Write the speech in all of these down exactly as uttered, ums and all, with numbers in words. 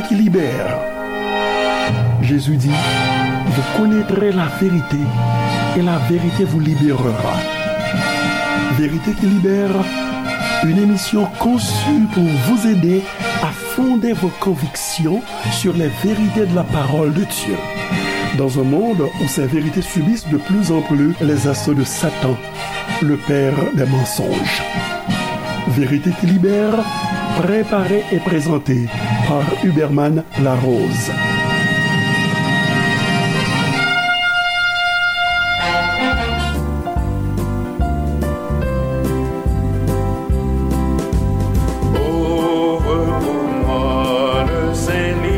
qui libère. Jésus dit, vous connaîtrez la vérité et la vérité vous libérera. Vérité qui libère, une émission conçue pour vous aider à fonder vos convictions sur les vérités de la parole de Dieu. Dans un monde où ces vérités subissent de plus en plus les assauts de Satan, le père des mensonges. Vérité qui libère, préparée et présentée par Huberman Larose. Ouvre pour moi le Saint-Livre,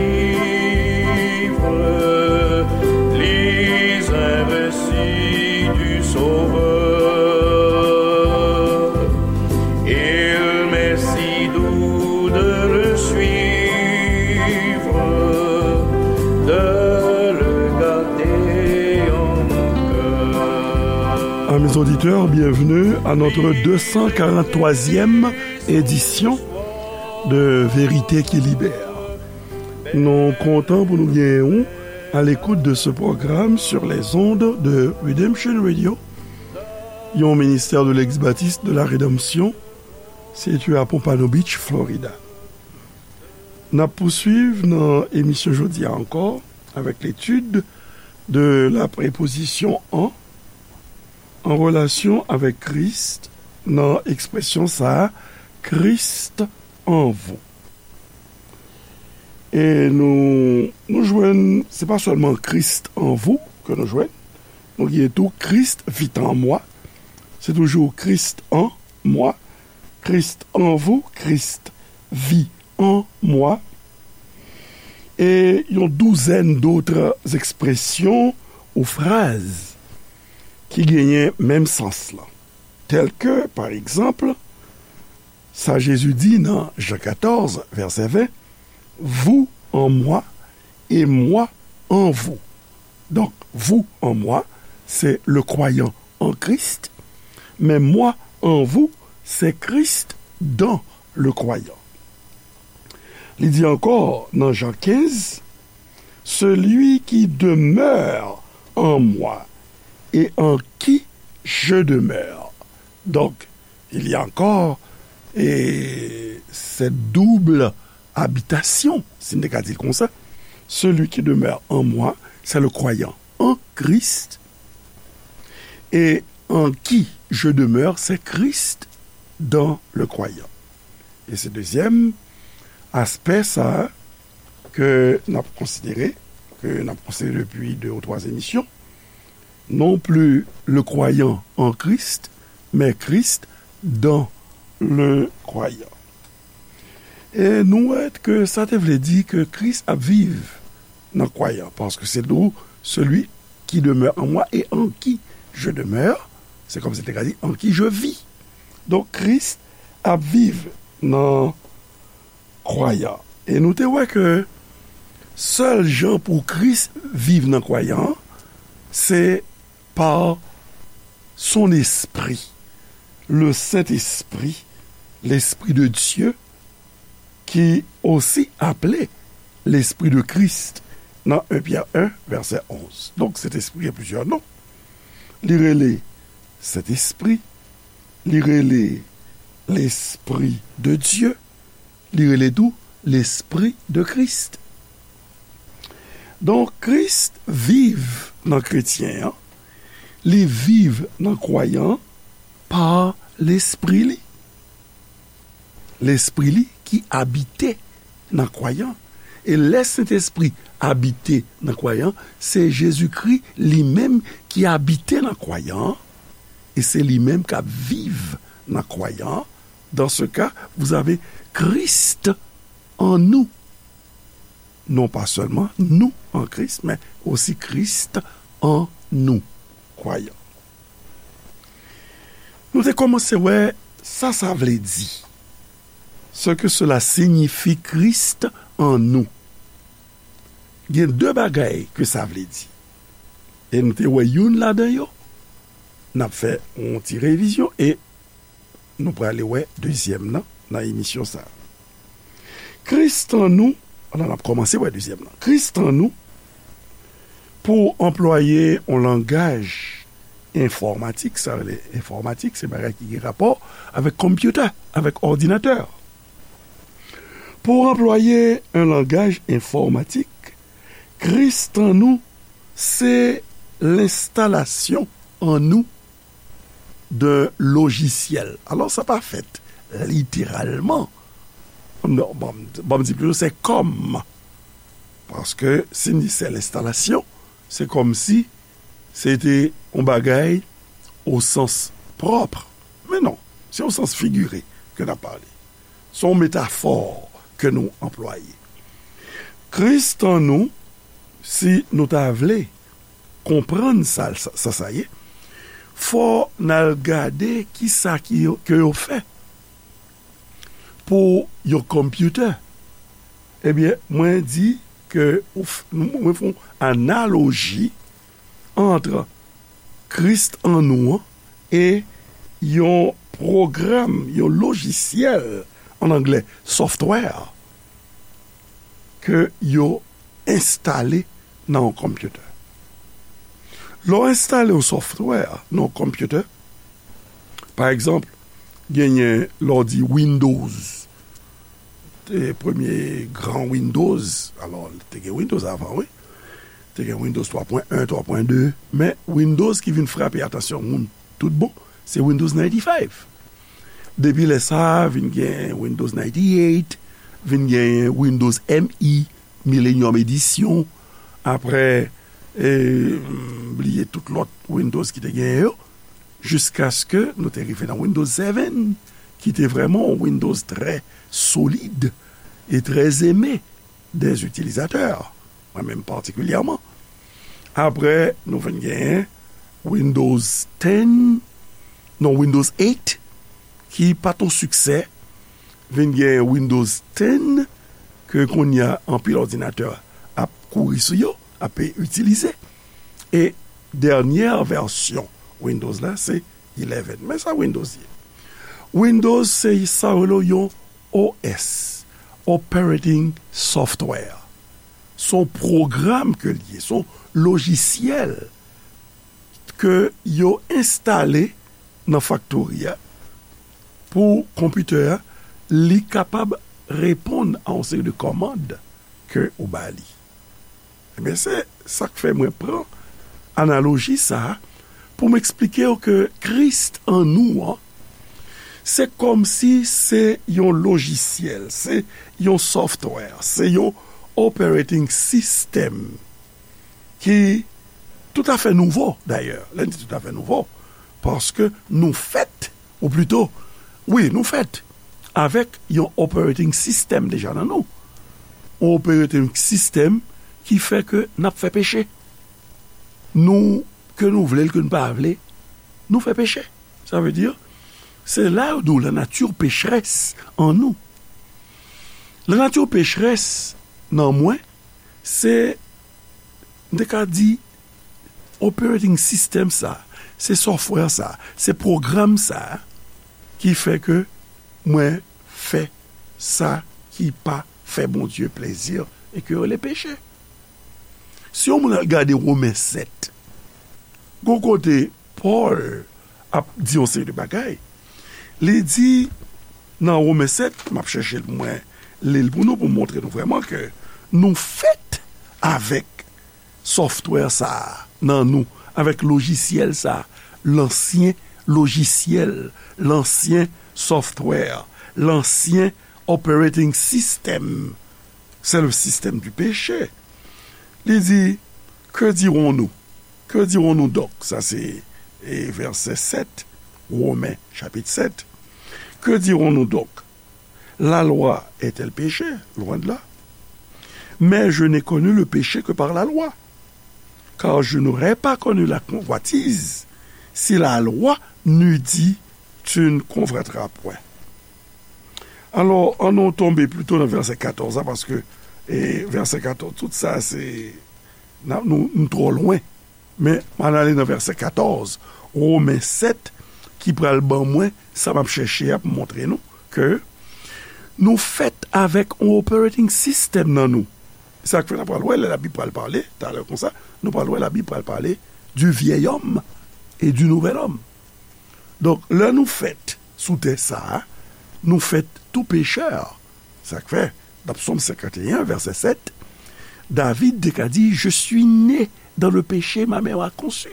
lis un récit du Sauveur. Il m'est si doux de le suivre, de le garder en mon cœur. Amis auditeurs, bienvenue à notre deux cent quarante-troisième édition de Vérité qui libère. Nou kontan pou nou genyen w à l'écoute de ce programme sur les ondes de Redemption Radio, yon ministère de l'ex-baptiste de la Rédemption, situé à Pompano Beach, Florida. N ap pouswiv nan emisyon jodi a ankò avec l'étude de la préposition en, en relation avec Christ, nan ekspresyon sa a, Christ en vous. E nou, nou jwenn, se pa sèlman Christ en vous ke nou jwenn, nou gen tou Christ vit en moi, se toujou Christ en moi, Christ en vous, Christ vit en moi, e yon douzèn dòt ekspresyon ou fraz ki genyen menm sans lan. Tèl ke, pa egzanp, sa Jezi di nan Jan katòz, vèsè ven, vous en moi et moi en vous. Donk, vous en moi, c'est le croyant en Christ, mais moi en vous, c'est Christ dans le croyant. Li di ankò nan Jan kenz, celui qui demeure en moi et en qui je demeure. Donc, il y a encore, eh, cette double habitation, si n te ka di l konsa. Celui qui demeure en moi, c'est le croyant en Christ, et en qui je demeure, c'est Christ dans le croyant. E se dezyèm aspè sa a ke n ap konsidere, ke n ap konsidere depi de ou twa emisyon. Non plus le croyant en Christ, mais Christ dans le croyant. E nou wè ke sa te vle di ke Kris ap viv nan kwayan, paske se dou celui qui demeure en moi et en qui je demeure, c'est comme si te ka di en qui je vis. Donk, Kris ap viv nan kwayan. E nou te wè ke sèl jan pou Kris viv nan kwayan an, se par son esprit, le Saint-Esprit, l'Esprit de Dieu, ki osi aple l'Esprit de Christ nan en Pyè en, vèsè onz. Donk, Sentespri gen plizyè non. Li rele Sentespri, li rele Lespri de Dye, li rele tou Lespri de Kris. Donk, Kris viv nan kretyen an, li viv nan kwayan an pa Lespri li. Lespri li ki abite nan kwayan. E lè Sentespri abite nan kwayan, se Jezikri li menm ki abite nan kwayan, e se li menm k ap viv nan kwayan. Dans ce cas, vous avez Christ en nous. Non pas seulement nous en Christ, mais aussi Christ en nous, croyant. Nou te kòmanse wè sa sa vle di. Ce que cela signifie, Christ en nous. Gen de bagay ke sa vle di. E nou te wè youn ladan yo. N ap fè yon ti revizyon e nou prale wè dezyèm nan, nan emisyon sa a. Kris an nou, Ann, n ap kòmanse pa dezyèm nan. Kris tan nou, pou anplwaye yon langaj enfòmatik, sa rele enfòmatik, se bagay ki gen rapò avèk konpyouta, avèk òdinatè. Pou anplwaye yon langaj enfòmatik, Kris tan nou, se lenstalasyon an nou de lojisyèl. Alò, sa pa fèt literalman. Non, bon, bon, m di plito, se kòm. Paske si n di se lenstalasyon, se kòmsi se te yon bagay o sans pwòp. Men non, se o sans figire ke n ap pale. Se yon metafò ke nou anplwaye. Kris tan nou, si nou ta vle konprann sa, sa, sa, sa ye, fò n al gade kisa ki yo, ke yo fè pou yon konpyouta. Ebyen, mwen di ke ou f-, mwen fè yon analoji ant Kris an nou an e yon pwogram, yon lojisyèl, an anglè, software, ke yo enstale nan yon konpyouta. Lè w enstale yon software nan yon konpyouta, pa egzanp, genyen lè w di Windows, te premye gran Windows, alò, te gen Windows avan, wi. Te gen Windows twa pwen en, twa pwen de, men Windows ki vin frape atansyon moun tout bon, se Windows ninety-five. Depi lè sa a, vin gen Windows ninety-eight, vin gen Windows M E, Millennium Edition, apre, e, m bliye tout lòt Windows ki te genyen yo, jiskaske nou te rive nan Windows seven, ki te vrèman yon Windows trè solid e trè eme dè itilizatè, mwen menm patikilyèman. Apre, nou vin genyen Windows ten, non, Windows eight, ki pa t yon siksè, vin genyen Windows ten, ke kounye a anpil òdinatè ap kouri sou yo, ap itilize. E dènyè vèsyon Windows la, se eleven. Men sa Windows ye. Windows se sa yo rele yon O S, Operating Software. Se yon pwogram ke l ye, se yon lojisyèl ke yo enstale nan faktori a pou konpitè a, li kapab reponn a yon seri de kòmand ke ou ba li. Ebyen, se sa k fè mwen pran analoji sa a pou m eksplike w ke Kris an nou an, se kòmsi se yon lojisyèl, se yon software, se yon operating system ki toutafè nouvo, dayè. Lè n di toutafè nouvo, paske nou fèt, ou plito, wi, nou fèt avèk yon operating system deja nan nou. Yon operating system ki fè ke n ap fè peche. Nou, ke nou vle l, ke nou pa vle, nou fè peche. Sa vle di, se la yo di w la nature pécheresse an nou. La nature pécheresse nan mwen, se, m te ka di, operating system sa, se software sa, se pwogram sa ki fè ke mwen fè sa ki pa fè Bondye plezi e ke yo rele peche. Si yon moun al gade Women sèt, gon kote Pòl ap di yon seri de bagay. Li di nan Women sèt, m ap chèche l pou mwen li l pou nou, pou m montre nou vrèman ke nou fèt avèk software sa a nan nou, avèk lojisyèl sa a, lansyen lojisyèl, lansyen software, lansyen operating system. C'est le système du péché. Li di, que dirons-nous? Que dirons-nous donc? Sa se, e, vèsè sèt, Women, chapit sèt. Que dirons-nous donc? La loi est-elle péché? Loin de là. Mais je n'ai connu le péché que par la loi. Car je n'aurais pas connu la convoitise si la loi n'eût dit, tu ne convoiteras point. Alò, ann nou tonbe plito nan vèsè katòz la, paske, e, vèsè katòz, tout sa, se, n a, nou, nou twò lwen. Men, ann ale nan vèsè katòz, Women sèt, ki pral ban mwen sa m ap chèche a pou montre nou ke nou fèt avèk yon operating system nan nou. Sa k fè n ap pral wè, lè Labib pral pale, talè konsa, nou pral wè Labib pral pale du vieil homme et du nouvel homme. Donk, lè nou fèt sou tè sa a, nou fèt tou pechè. Sa k fè, nan Psaume cinquante et un, verset sept, David te ka di, Je suis né dans le péché, ma mère m'a conçu.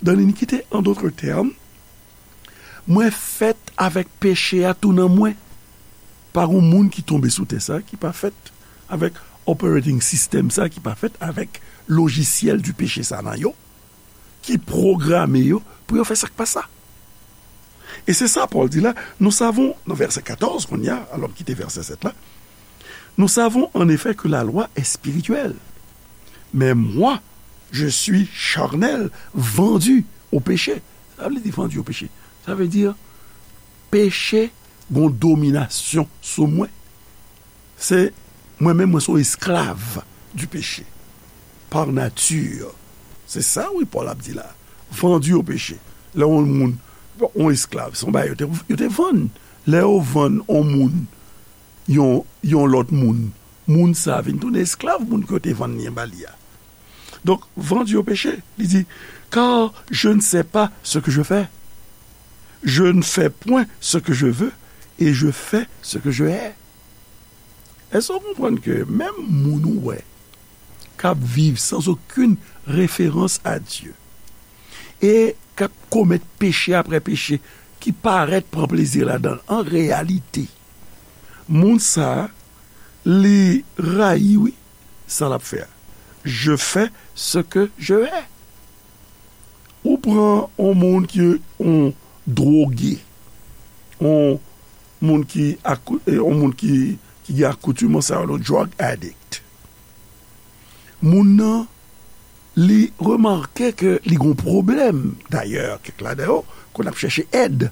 Dans l'iniquité, en d'autres termes, mwen fèt avèk peche a tou nan mwen. Pa gen moun ki tonbe sou tè sa ki pa fèt avèk operating system sa, ki pa fèt avèk lojisyèl du péché sa nan yo, ki pwograme yo pou yo fè sa k pa sa. E se sa Pòl di la, nous savons, nan vèsè katòz kounye a, alò m kite vèsè sèt la, nous savons en effet que la loi est spirituelle, mais moi, je suis charnel, vendu au péché. Sa vle di vendu au péché. Sa vle di, peche gon dominasyon sou mwen. Se mwen menm, mwen se yon esklav du péché. Par nature. Se sa, wi, Pòl ap di la. Vendu au péché. Lè yon moun, yon esklav, se yon bagay yo te, yo te vann. Lè yo vann yon moun, yon, yon lòt moun, moun sa vin tounen esklav moun ke yo te vann li an ba li a. Donk, vendu au péché, li di, car je ne sais pas ce que je fais. Je ne fais point ce que je veux, et je fais ce que je hais. Èske w konprann ke menm moun ou wè k ap viv sans aucune référence à Dieu e k ap komèt peche apre peche, ki parèt pran plezi ladan l, an reyalite, moun sa a, li rayi, wi, sa l ap fè a. Je fais ce que je hais. Ou pran yon moun ki yon dwoge, yon moun ki akou-, eh, yon moun ki, ki gen akoutimans sa yo, yon drug addict. Moun nan, li remake ke li gen yon pwoblèm. Dayè, kèk ladan yo konn ap chèche èd.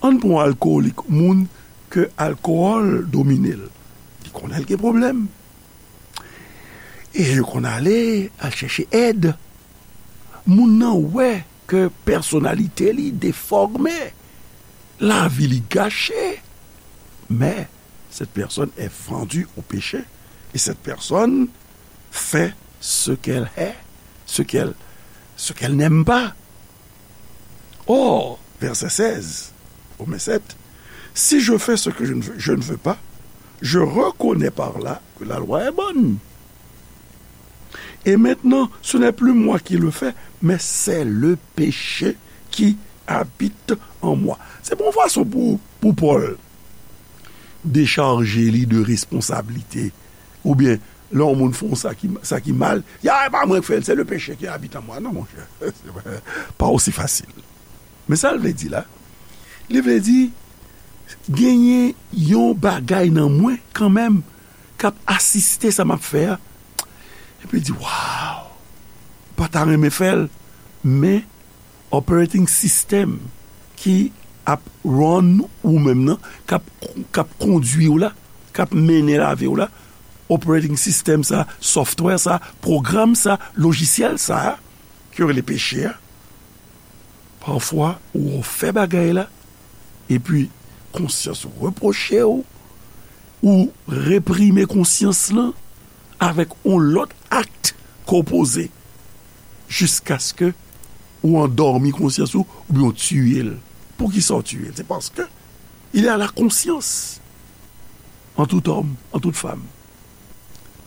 Ann pran yon alkowolik, moun ke alkòl domine l. Li konnen l gen pwoblèm. E yo konn ale al chèche èd. Moun nan wè ke pèsonalite li defòme, lavi li gache. Mais cette personne est vendue au péché et cette personne fait ce qu'elle hait, ce qu'elle, ce qu'elle n'aime pas. Or, verset seize, au verset sept, si je fais ce que je ne veux, je ne veux pas, je reconnais par là que la loi est bonne. Et maintenant, ce n'est plus moi qui le fais, mais c'est le péché qui habite en moi. Se bon fason pou, pou Pòl dechaje li de responsablite. Oubyen, lè yon moun fè yon sa ki, sa ki mal, ya, e pa mwen k fè l, se le péché qui habite en moi. Non, monchè, pa osi fasil. Men sa l vle di la, li vle di, genyen yon bagay nan mwen kanmenm k ap asiste sa m ap fè a. Epi l di, waw, pa ta renmen fè l, men operating system ki ap run ou menm nan, k ap, k ap kondui w la, k ap mennen lavi w la, operating system sa, software sa, pwogram sa, lojisyèl sa, ke yo rele peche a, pafwa ou fè bagay la, epi konsyans ou repwoche w, ou reprime konsyans lan avèk yon lòt ak ke w poze, jiskaske ou andòmi konsyans ou, oubyen w tiye l. Poukisa w tiye l? Se paske il y a la conscience en tout homme, en toute femme.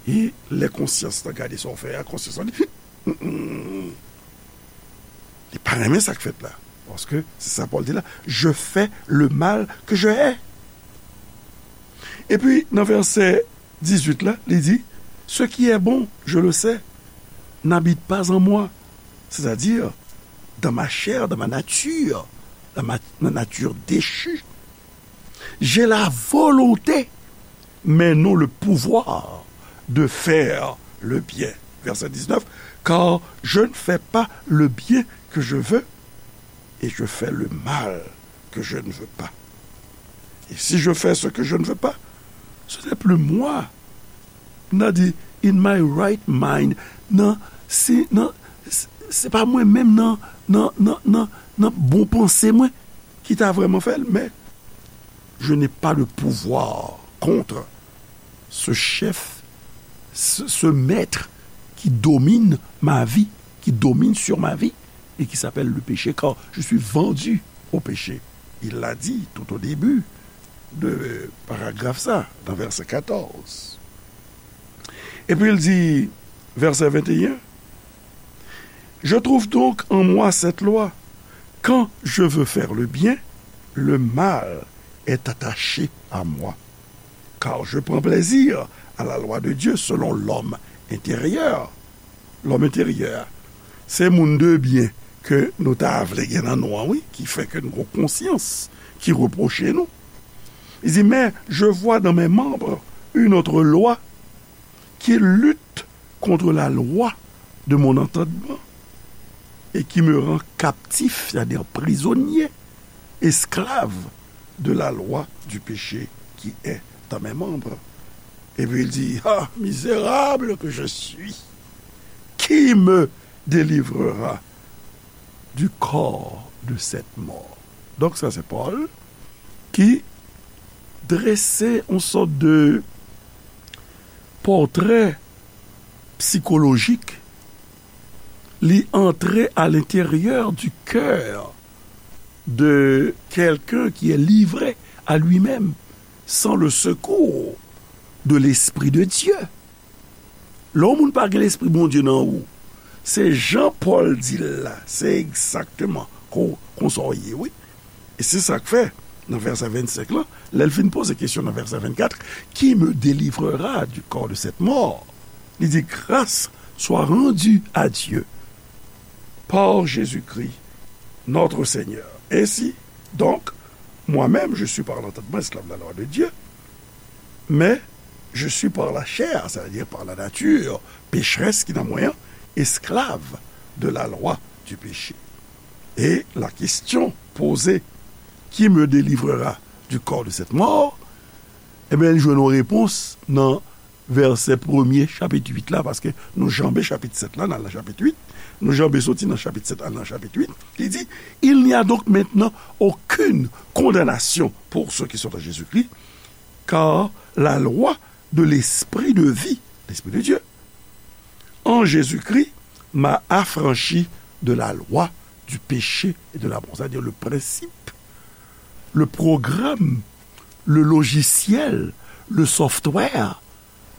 E lè konsyans lan gade sa w fè a, konsyans lan di, li pa renmen sa k fèt la. Paske se sa Pòl di la, je fais le mal que je hais. Epi, nan vèsè dizuit la, li di, ce qui est bon, je le sais, n'habite pas en moi. C'est-à-dire, dans ma chair, dans ma nature, dans ma, ma nature déchue, j'ai la volonté, mais non le pouvoir de faire le bien. Verset dix-neuf, car je ne fais pas le bien que je veux, et je fais le mal que je ne veux pas. Et si je fais ce que je ne veux pas, ce n'est plus moi. Nan di, in my right mind. Nan, se, nan, se, se pa mwen menm nan, nan, nan, nan, nan bon panse mwen ki ta vrèman fè l, men je n'ai pas de pouvoir contre ce chef ce, ce maître qui domine ma vie, qui domine sur ma vie, et qui s'appelle le péché, car je suis vendu au péché. Il l'a dit tout au début de paragraphe ça, dans verset quatorze. Et puis il dit, verset vingt et un, je trouve donc en moi cette loi, quand je veux faire le bien, le mal est attaché à moi. Car je prends plaisir à la loi de Dieu selon l'homme intérieur. Lòm enteryè, se moun de byen ke nou ta vle gen nan nou an, wi, ki fè ke nou gon konsyans ki repwoche nou. Li di, mais je vois dans mes membres une autre loi qui lutte contre la loi de mon entendement et qui me rend captif, c'est-à-dire prisonnier, esclave de la loi du péché qui est dans mes membres. Et puis il dit, ah, misérable que je suis, qui me délivrera du corps de cette mort? Donc ça c'est Paul qui dresse une sorte de portrait psychologique. Li antre à l'intérieur du cœur de quelqu'un qui est livré à lui-même sans le secours de l'Esprit de Dieu. Lè yon moun pa gen Lespri Bondye nan ou, se jan Pòl di l la, se egzakteman kon, konsa w ye, wi. E se sa k fè, nan vèsè vennsenk lan, lè l fin poze kesyon nan vèsè vennkat, qui me délivrera du corps de cette mort? Li di, grâce soit rendue à Dieu par Jésus-Christ, notre Seigneur. Ainsi, donc, moi-même, je suis par l'entendement esclave de la loi de Dieu, mais je suis par la chair, c'est-à-dire par la nature pécheresse qui dans moi, esclave de la loi du péché. Et la question posée, qui me délivrera du corps de cette mort? Ebyen, li jwenn yon repons nan vèsè premye chapit uit la, paske nou janbe chapit sèt la, n al nan chapit uit, nou janbe soti nan chapit sèt al nan chapit uit, li di, il n'y a donc maintenant aucune condamnation pour ceux qui sont en Jésus-Christ, car la loi de l'esprit de vie, l'Esprit de Dieu, en Jésus-Christ, m'a affranchi de la loi du péché et de la mort. C'est-à-dire le principe, le programme, le logiciel, le software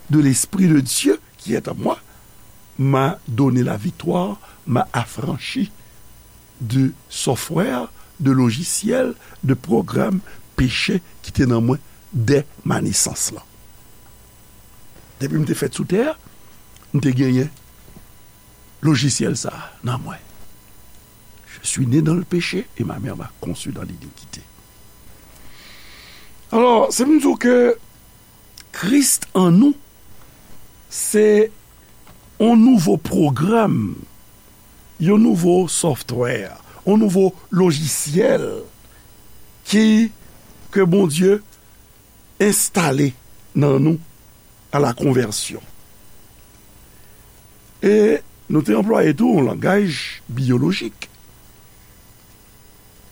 de l'Esprit de Dieu qui est en moi m'a donné la victoire, m'a affranchi de software, de logiciel, de programme péché ki te nan mwen dè ma nesans lan. Depi m te fèt sou tè a, m te genyen lojisyèl sa a nan mwen. Je suis né dans le péché et ma mère m'a conçu dans l'iniquité. Alò, se pou m di w ke Kris an nou, se yon nouvo pwogram, yon nouvo software, yon nouvo lojisyèl ki, ke Bondye enstale nan nou à la conversion. E nou te anplwaye tou yon langaj biyolojik.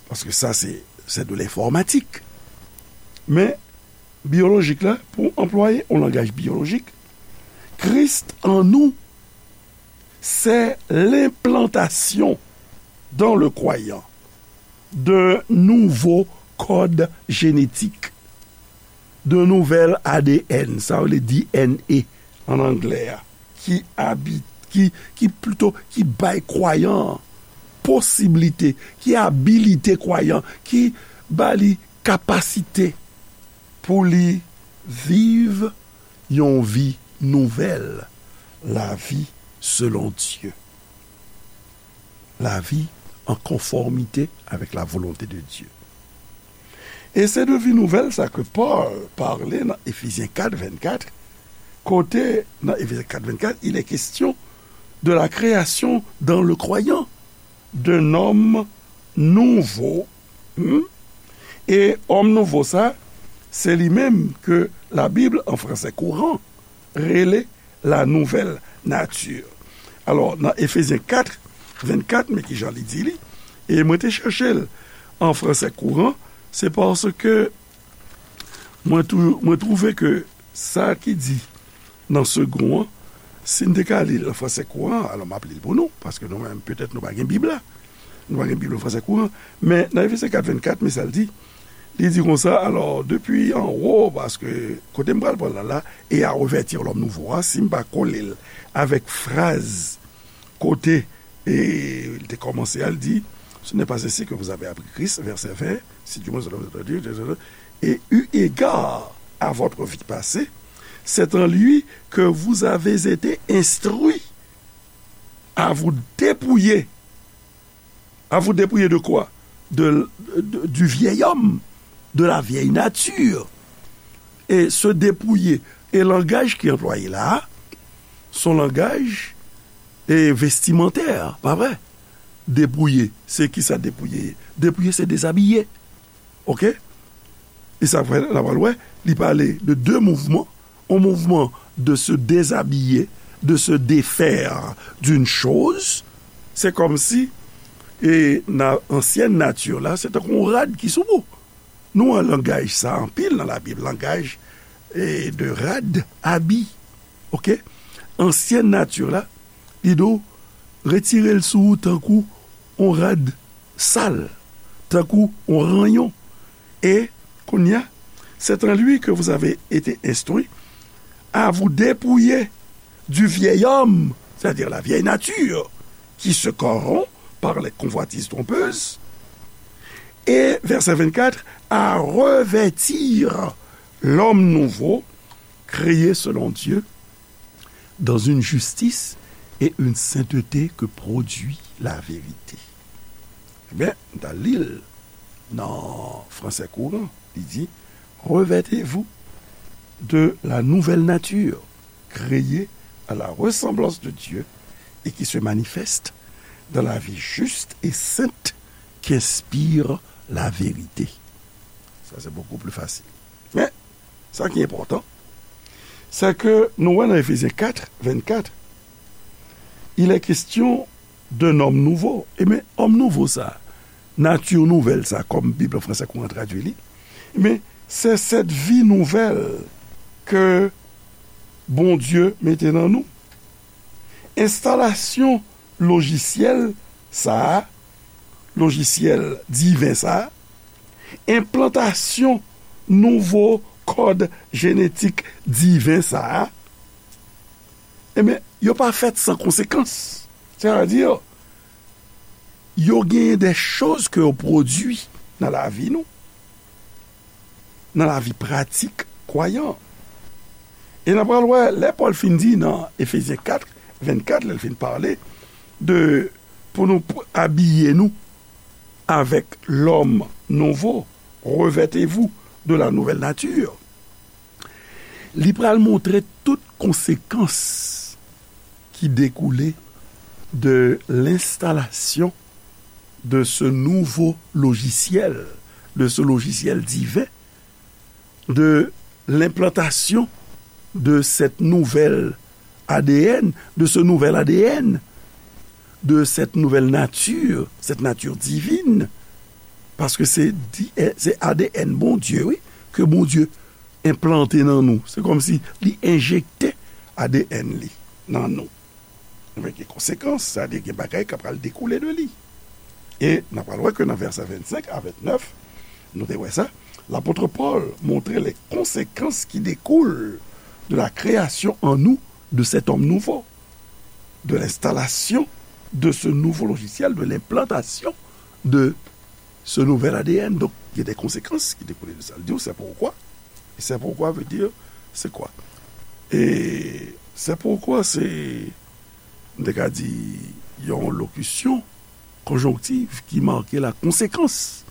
Paske sa se, c'est de l'informatique. Men biyolojik la, pou anplwaye yon langaj biyolojik, Kris an nou, c'est l'implantation dans le croyant d'un nouveau code génétique, d'un nouvel A D N, sa yo rele D N A an anglè a, ki abi-, ki, ki plito, ki bay kwayan an posiblite, ki abilite kwayan, ki ba li kapasite pou li viv yon vi nouvèl, la vie selon Dieu. La vie en conformité avec la volonté de Dieu. E se de vi nouvèl sa ke Pòl pale nan Efezyen kat vennkat, kote nan Efezyen kat vennkat, il est question de la création dans le croyant d'un homme nouveau. Hmm? E òm nouvo sa, se li menm ke Labib an fransè kouran rele la nouvelle nature. Alò, nan Efezyen kat vennkat, men kijan li di li, e mwen te chèche l an fransè kouran, se paske mwen tou-, mwen twouve ke sa ki di nan segon an, si n te ka li l an fransè kouran, alò m ap li l pou nou, paske nou menm, petèt nou pa gen Bib la. Nou pa gen Bib an fransè kouran. Men nan Efesyen kat vennkat, men sa l di. Li di konsa, alò, depi anwo, paske kote m pral pran l la, et à revêtir l'homme nouveau a, si m pa kole l avèk fraz kote, e, li te kòmanse a, l di, Ce n'est pas ainsi que vous avez appris Christ, verset vingt, si du moins vous avez entendu, et eu égard à votre vie passée, c'est en lui que vous avez été instruits à vous dépouiller. À vous dépouiller de quoi? De, de- du vieil homme, de la vieille nature. Et se dépouiller. E langaj ki anplwaye la a, se yon langaj e vestimantè, pa vre? Depouye, se kisa depouye ye? Depouye, se dezabiye. Oke? E sa fè, n a pral wè, li pale de de mouvman. Un mouvement de se déshabiller, de se défaire d'une chose. Se kòmsi, e nan ansyen nati la, se tankou yon rad ki sou ou. Nou wè langaj sa anpil nan Labib, langaj, e, de rad, abi. Oke? Ansyen nati la, li di w, retire l sou ou tankou yon rad sal, tankou yon ranyon. Et, kounye a, c'est en lui que vous avez été instruits à vous dépouiller du vieil homme, c'est-à-dire la vieille nature, qui se corrompt par les convoitises trompeuses, et, verset vingt-quatre, à revêtir l'homme nouveau, créé selon Dieu, dans une justice et une sainteté que produit la vérité. Ebyen, m ta li l nan fransè kouran, li di, Revêtez-vous de la nouvelle nature, créée à la ressemblance de Dieu et qui se manifeste dans la vie juste et sainte qu'inspire la vérité. Sa, se bokou pli fasil. Men, sa ki enpòtan, se ke nou wè nan Efezyen kat, vennkat, il est question d'un homme nouveau. Ebyen, òm nouvo sa, nati nouvèl sa, kòm Bib an fransè kouran tradui li, ebyen, c'est cette vie nouvelle que Bondye mete nan nou. Enstalasyon lojisyèl sa a, lojisyèl diven sa a, enplantasyon nouvo kòd jenetik diven sa a, ebyen, yo pa fèt san konsekans. Sètadi, yo genyen de choz ke yo pwodui nan lavi nou, nan lavi pratik kwayan. E n a pral wè, lè Pòl fin di nan Efezyen kat, vennkat, lè l fin pale de pou nou p- abiye nou avec l'homme nouveau, revêtez-vous de la nouvelle nature. Li pral montre tout konsekans ki dekoule de l'installation de ce nouveau logiciel, de ce logiciel divin, de l'implantation de cette nouvelle A D N, de ce nouvel A D N, de cette nouvelle nature, cette nature divine, paske se di- eh, se A D N Bondye, wi, ke Bondye enplante nan nou. Se kòmsi li enjekte A D N li nan nou. Ebyen, gen konsekans, sa vle di gen bagay k ap pral dekoule de li. E n ap pral wè ke nan vèsè vennsenk a vennèf, nou te wè sa, l'apôtre Paul montre les conséquences qui découlent de la création en nous de cet homme nouveau, de l'installation de ce nouveau logiciel, de l'implantation de ce nouvel A D N. Donk, gen de konsekans ki dekoule de sa. L di w, c'est pourquoi. Et c'est pourquoi veut dire, c'est quoi? Et c'est pourquoi, se, m te ka di, yon lokisyon konjonktiv ki make la konsekans.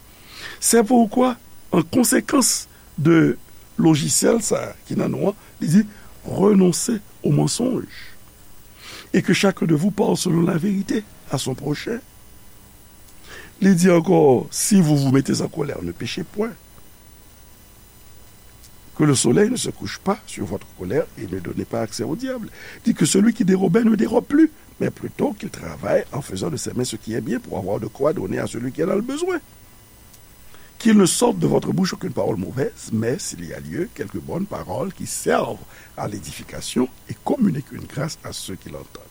C'est pourquoi, en conséquence de lojisyèl sa ki nan nou an, li di, renoncez au mensonge, et que chacun de vous parle selon la vérité à son prochain. Li di ankò, si vous vous mettez en colère, ne péchez point. Que le soleil ne se couche pas sur votre colère et ne donnez pas accès au diable. Dit que celui qui dérobait ne dérobe plus, mais plutôt qu'il travaille en faisant de ses mains ce qui est bien pour avoir de quoi donner à celui qui en a le besoin. Qu'il ne sorte de votre bouche aucune parole mauvaise, mais s'il y a lieu, quelques bonnes paroles qui servent à l'édification et communiquent une grâce à ceux qui l'entendent.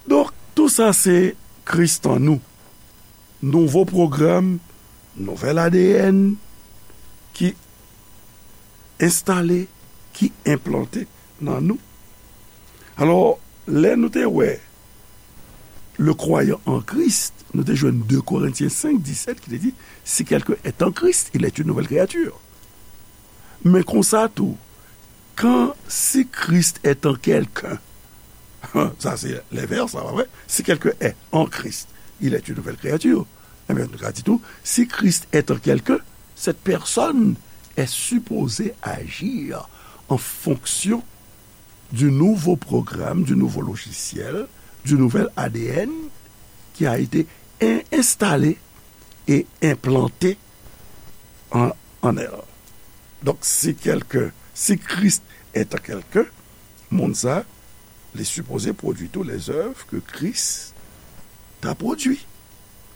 Donk, tou sa se Kris an nou. Nouvo pwogram, nouvèl A D N ki enstale, ki enplante nan nou. Alò, lè nou te wè le croyant en Christ, nou te jwenn de Korentyen senk disèt ki te di, si quelqu'un est en Christ, il est une nouvelle créature. Men konsa tou, quand si Christ est en quelqu'un, sa se lenvès, sa pa vre? Si quelqu'un est en Christ, il est une nouvelle créature. Ebyen, nou ka di tou, si Christ est en quelqu'un, cette personne est supposée agir en fonction du nouveau programme, du nouveau logiciel, du nouvel A D N qui a été in- installé et implanté en, en elle. Donk, si quelqu'un, si Christ est en quelqu'un, moun sa, li sipoze pwodui tou lèzèv ke Kris ta pwodui.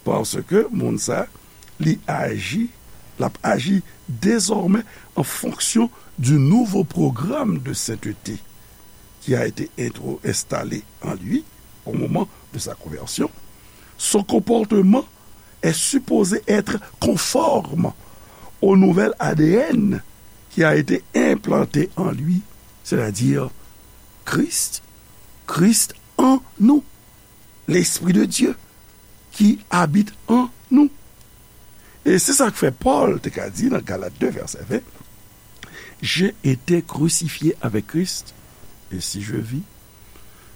Paske moun sa, li aji, l ap aji dezòmè en fonction du nouveau programme de sainteté qui a été intro- installé en lui au moment de sa conversion. Son comportement est supposé être conforme au nouvel A D N qui a été implanté en lui, c'est-à-dire Christ, Christ en nous, l'Esprit de Dieu qui habite en nous. E se sa k fè Pòl te ka di nan Galat de vèsè ven, j'ai été crucifié avec Christ, et si je vis,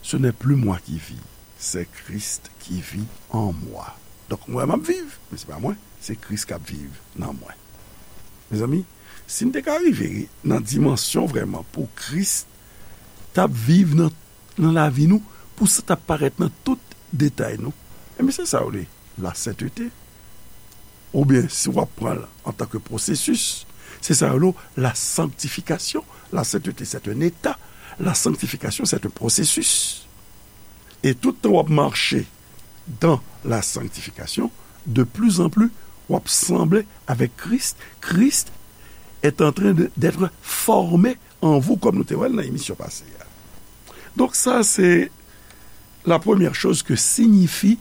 ce n'est plus moi qui vis, c'est Christ qui vit en moi. Donk, mwen, m ap viv, men se pa mwen, se Kris k ap viv nan mwen. Mezanmi, si n te ka rive nan dimansyon vrèman pou Kris t ap viv nan, nan lavi nou, pou sa t ap parèt nan tout detay nou, ebyen, se sa yo rele la sainteté. Oubyen, si w ap pran l antanke pwosesis, se sa yo rele la sanctification. La sainteté, c'est un état. La sanctification, c'est un processus. E tout tan w ap mache dans la sanctification, de plus en plus, w ap sanble avec Christ. Christ est en train de, d'être formé en vous, kòm nou te wè l nan emisyon pase a. Donk, sa se la première chose que signifie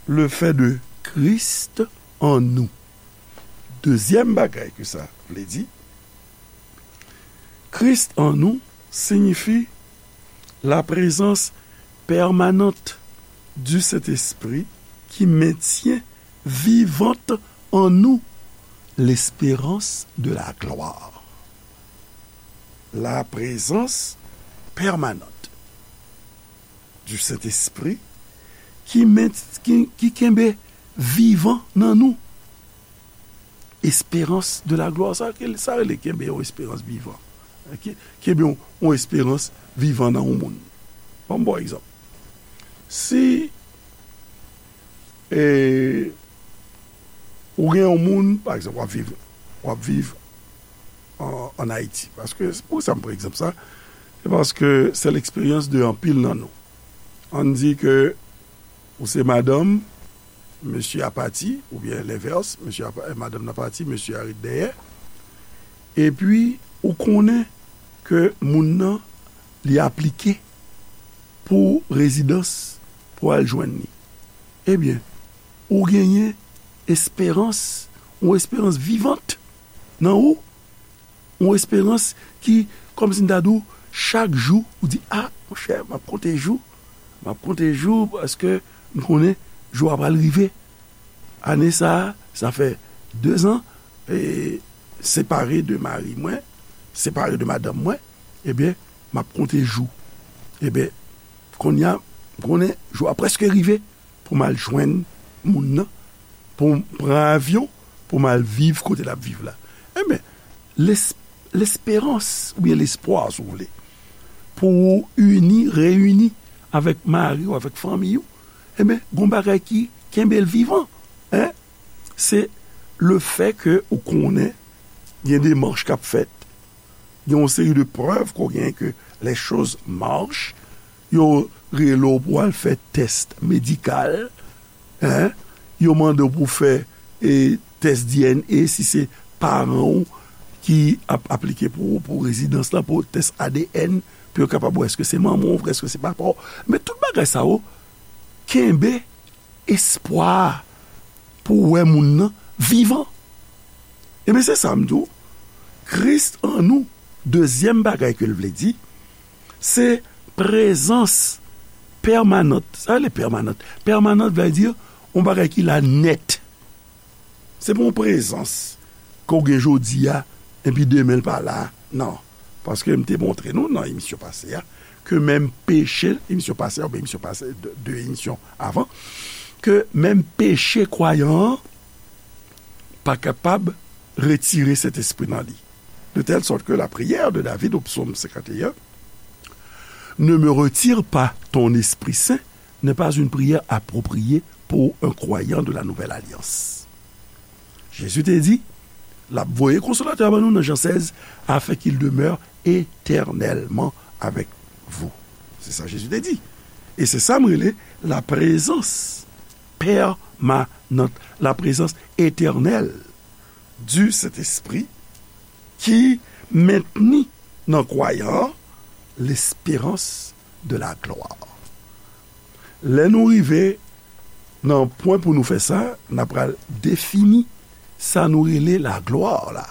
le fait de Christ en nous. Dezyèm bagay ke sa vle di, Christ en nous signifie la présence permanente du Saint-Esprit qui maintient vivante en nous l'espérance de la gloire. La présence permanente du Saint-Esprit qui maint- qui, qui kenbe vivan nan nou. Espérance de la gloire. Sa, sa rele kenbe yon esperans vivan. Ki, kenbe yon, yon esperans vivan nan yon moun. Ban m ba w egzanp. Si, e, ou gen yon moun, pa egzanp, w ap viv, w ap viv an, an Ayiti. Paske, poukisa m pran egzanp sa? Se paske se l'expérience de anpil nan nou. Ann di ke ou se madanm, mesye a pati, oubyen lenvès, mesye a pa- madanm nan pati, mesye a ret dèyè. Epi, ou konnen ke moun nan, li aplike pou rezidans pou al jwenn li. Ebyen, ou genyen esperans, yon esperans vivant nan ou, yon esperans ki, kòmsi m ta di w, chak jou, ou di, a, monchè, m ap konte jou, m ap konte jou, paske m konnen jou a pral rive. Ane sa a, sa fè dezan, e, separe de mari mwen, separe de madanm mwen, ebyen, m ap konte jou. Ebyen, kounye a, m konnen jou a prèske rive pou m al jwenn moun nan, pou m pran avyon, pou m al viv kote l ap viv la. Ebyen, les- lesperans, oubyen lespwa, si w vle, pou ou ini, reyini avèk mari w, avèk fanmi w, ebyen, gon bagay ki kenbe l vivan, en? Se le fè ke ou konnen gen demach k ap fèt, gen yon seri de prèv ke w genyen ke les choses marchent, yo rele w pou w al fè tès medikal, en? Yo mande w pou w fè e tès D N A, si se paran w ki ap aplike pou, pou rezidans lan, pou tès A D N, pou yo kapab wè èske se manman w vre, èske se papa w. Men tout bagay sa yo kenbe espwa pou wè moun nan vivan. Ebyen, se sa m di w. Kris an nou, dezyèm bagay ke l vle di, se prezans pèmanant. Sa rele pèmanant. Pèmanant vle di yon bagay ki la nèt. Se pa yon prezans ke w gen jodi a, epi demen l pa la. Non. Paske m te montre nou nan emisyon pase a, ke menm peche, emisyon pase a, oubyen emisyon pase, de, de emisyon avan, ke menm peche kwayan an pa kapab retire Sentespri nan li. De telle sorte que la prière de David au psaume cinquante et un, ne me retire pas ton Esprit Saint, n'est pas une prière appropriée pour un croyant de la Nouvelle Alliance. Jezi te di, l ap voye Konsolatè a ban nou nan Jan sèz, afin qu'il demeure éternellement avec vous. Se sa Jezi te di. E se sa m rele la prezans pèmanant, la prezans etènèl du Saint-Esprit ki mentni nan kwayan an lesperans de la glwa. Lè nou rive nan pwen pou nou fè sa, n a pral defini sa nou rele la glwa la,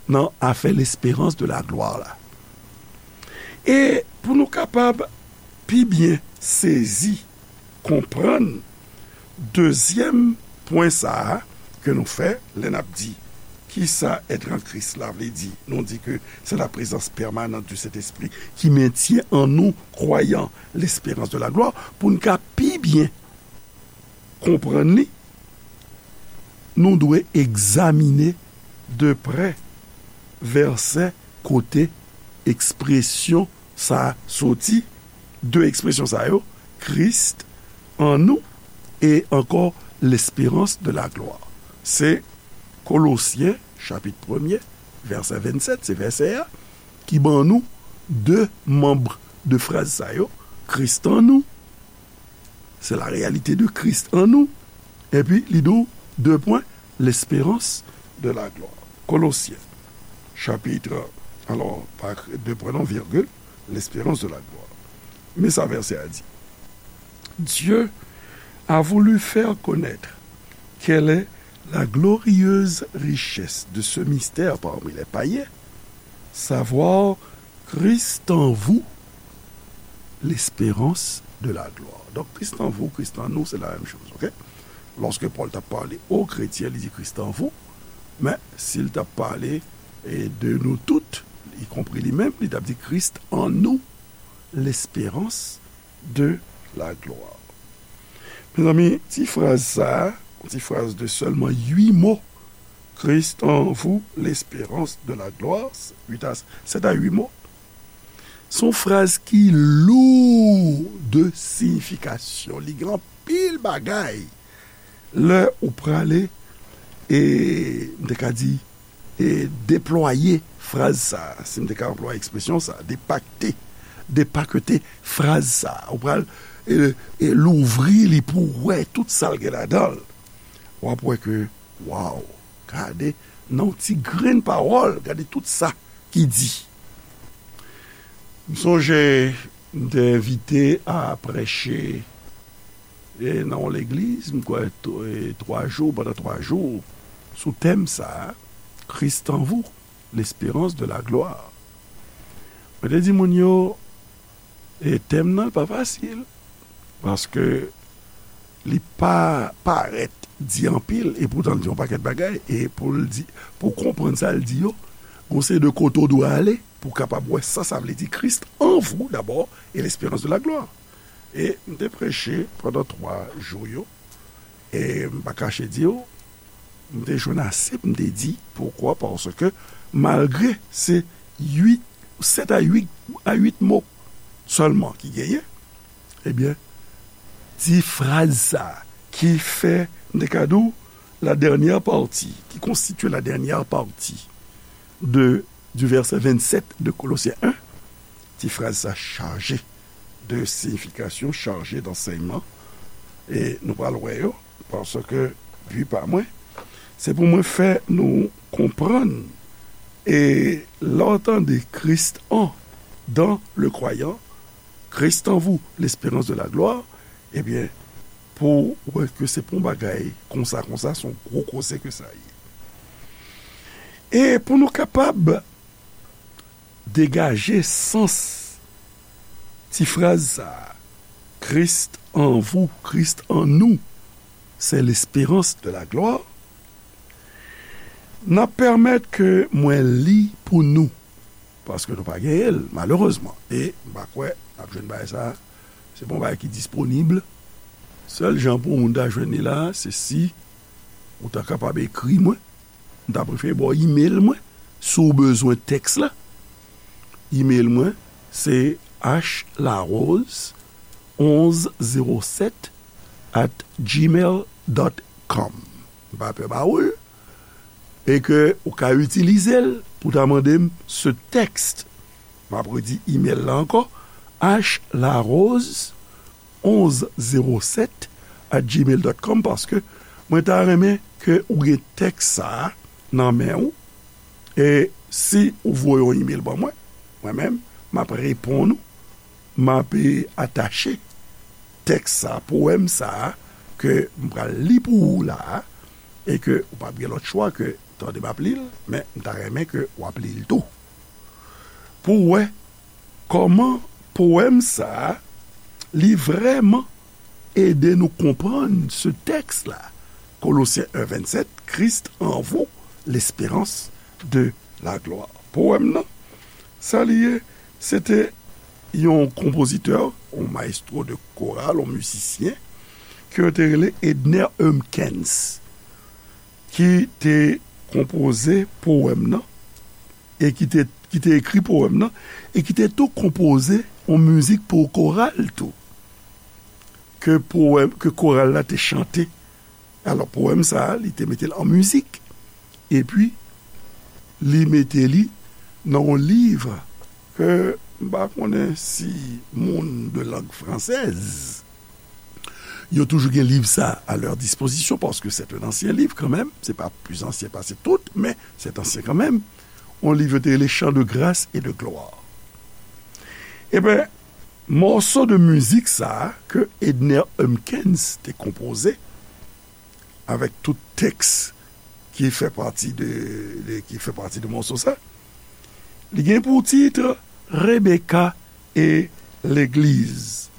nan afè lesperans de la glwa la. E pou nou kapab pi byen sezi, konprann dezyèm pwen sa a ke nou fè lè n ap di kisa être en Christ la vle di. Nou di ke c'est la présence permanente du Saint-Esprit qui maintient en nous, croyants, l'espérance de la gloire. Pou n ka pi byen konprann li, nou dwe egzamine de prè vèsè kote ekspresyon sa a soti, de ekspresyon sa yo, Christ en nous e ankò l'espérance de la gloire. Se Kolosyen, chapit premye, vèsè vennsèt, se vèsè a, ki ban nou de manm de fraz sa yo, Christ en nous, c'est la réalité de Christ en nous, epi li di w, de pwen, l'espérance de la gloire. Kolosyen, chapit, alò, pa de pwen non, virgil, l'espérance de la gloire. Men sa vèsè a di. Dieu a voulu faire connaître quelle est la glorieuse richesse de ce mystère parmi les païens, savoir Christ en vous, l'espérance de la gloire. Donk, Christ en vous, Christ en nous, c'est la même chose, ok? Lòske Pòl t ap pale o kretyen, li di Christ en vous, men si l t ap pale, e, de nou tout, ikonpri li menm, li t ap di Christ en nous, l'espérance de la gloire. Mezanmi, ti fraz sa a, ti fraz de sèlman uit mo, Christ en vous, l'espérance de la gloire, uit a, sèt a uit mo, se yon fraz ki lou de siyifikasyon. Li gen anpil bagay. Lè ou prale, e, m te ka di, e, deplwaye fraz sa a, si m te ka anplwaye ekspresyon sa a, depakte, depakete fraz sa a. Ou pral, e, e, louvri li pou w wè tout sa l gen ladan l. W ap wè ke, waw, gade, nan yon ti grenn pawòl, gade tout sa ki di. M sonje, m te envite a preche, e, nan yon legliz, m kwè, t-, e, twa jou, pandan twa jou, sou tèm sa a, Christ en vous, l'espérance de la gloire. Mwen te di moun yo, e, tèm nan pa fasil, paske li pa parèt di anpil, e poutan l di yon pakèt bagay, e pou l di, pou konprann sa l di yo, gon seri de kote w dwe ale pou w kapab wè sa sa vle di Christ en vous d'abord et l'espérance de la gloire. E m te preche pandan twa jou yo, e m pa kache di w, m te jwenn ase pou m te di, poukwa? Paske malgre se uit, sèt a uit, a uit mo sèlman ki genyen, ebyen, ti fraz sa ki fè, m te ka di w, la dernière partie, qui constitue la dernière partie de, du verset vingt-sept de Colossiens un, ti fraz sa chaje de siyifikasyon, chaje d'ansèyman. E nou pral wè yo, paske bi pa mwen, Se pou mwen fè nou konprann, e lè w tande Christ en, dans le croyant, Christ en vous, l'espérance de la gloire, ebyen, pou w wè ke se pa yon bagay konsa, konsa, se yon gwo koze ke sa ye. E pou nou kapab degaje sans ti fraz sa a, Christ en vous, Christ en nous, c'est l'espérance de la gloire, n ap pèmèt ke mwen li pou nou, paske nou pa genyen l, malerezman. E m pa kwè n ap jwenn bagay sa a. Se pa yon bagay ki disponib. Sèl jan pou yon moun ta jwenn li la a, se si ou ta kapab ekri mwen. M ta prefere ba w imel mwen, si w bezwen tèks la. Imel mwen, se h larose onze zéro sept at gmail dot com. M pa pè ba ou l, e ke ou ka itilize l pou ta mande m ce texte. M ap redi imel la ankò, h larose onze zéro sept at gmail dot com, paske mwen ta renmen ke ou gen tèks sa a nan men ou, e si ou voye yon imel ban mwen, mwen menm, m ap reponn ou, m ap, e, atache tèks sa, powèm sa a, ke m pral li pou ou la a, e ke ou p ap gen lòt chwa ke tande m ap li l, men m ta renmen ke w ap li l tou. Pou w wè kòman powèm sa a, li vrèman ede nou konprann se tèks la, Kolosyen en vennsept, Christ en vous, l'espérance de la gloire. Powèm nan, sa li ye, se te yon konpozitè, yon maestro de koral, yon mizisyen, ke yo te rele Edner Humpkins, ki te konpoze powèm nan, e ki te, ki te ekri powèm nan, e ki te tou konpoze yon mizik pou koral tou, ke powèm, ke koral la te chante. Alò, powèm sa a, li te mete l an mizik, epi li mete li nan yon liv ke m pa konnen si moun de langue française, yo toujou gen liv sa a à leur disposition, paske c'est un ancien livre quand même, se pa plis ansyen pase tout, men c'est ancien quand même. Yon liv yo te rele Chants de grâce et de gloire. Eben, mòso de mizik sa a ke Edner Humpkins te konpoze, avèk tout tèks ki fè pati de, de, ki fè pati de mòso sa, li gen pou tit Rebecca et l'église.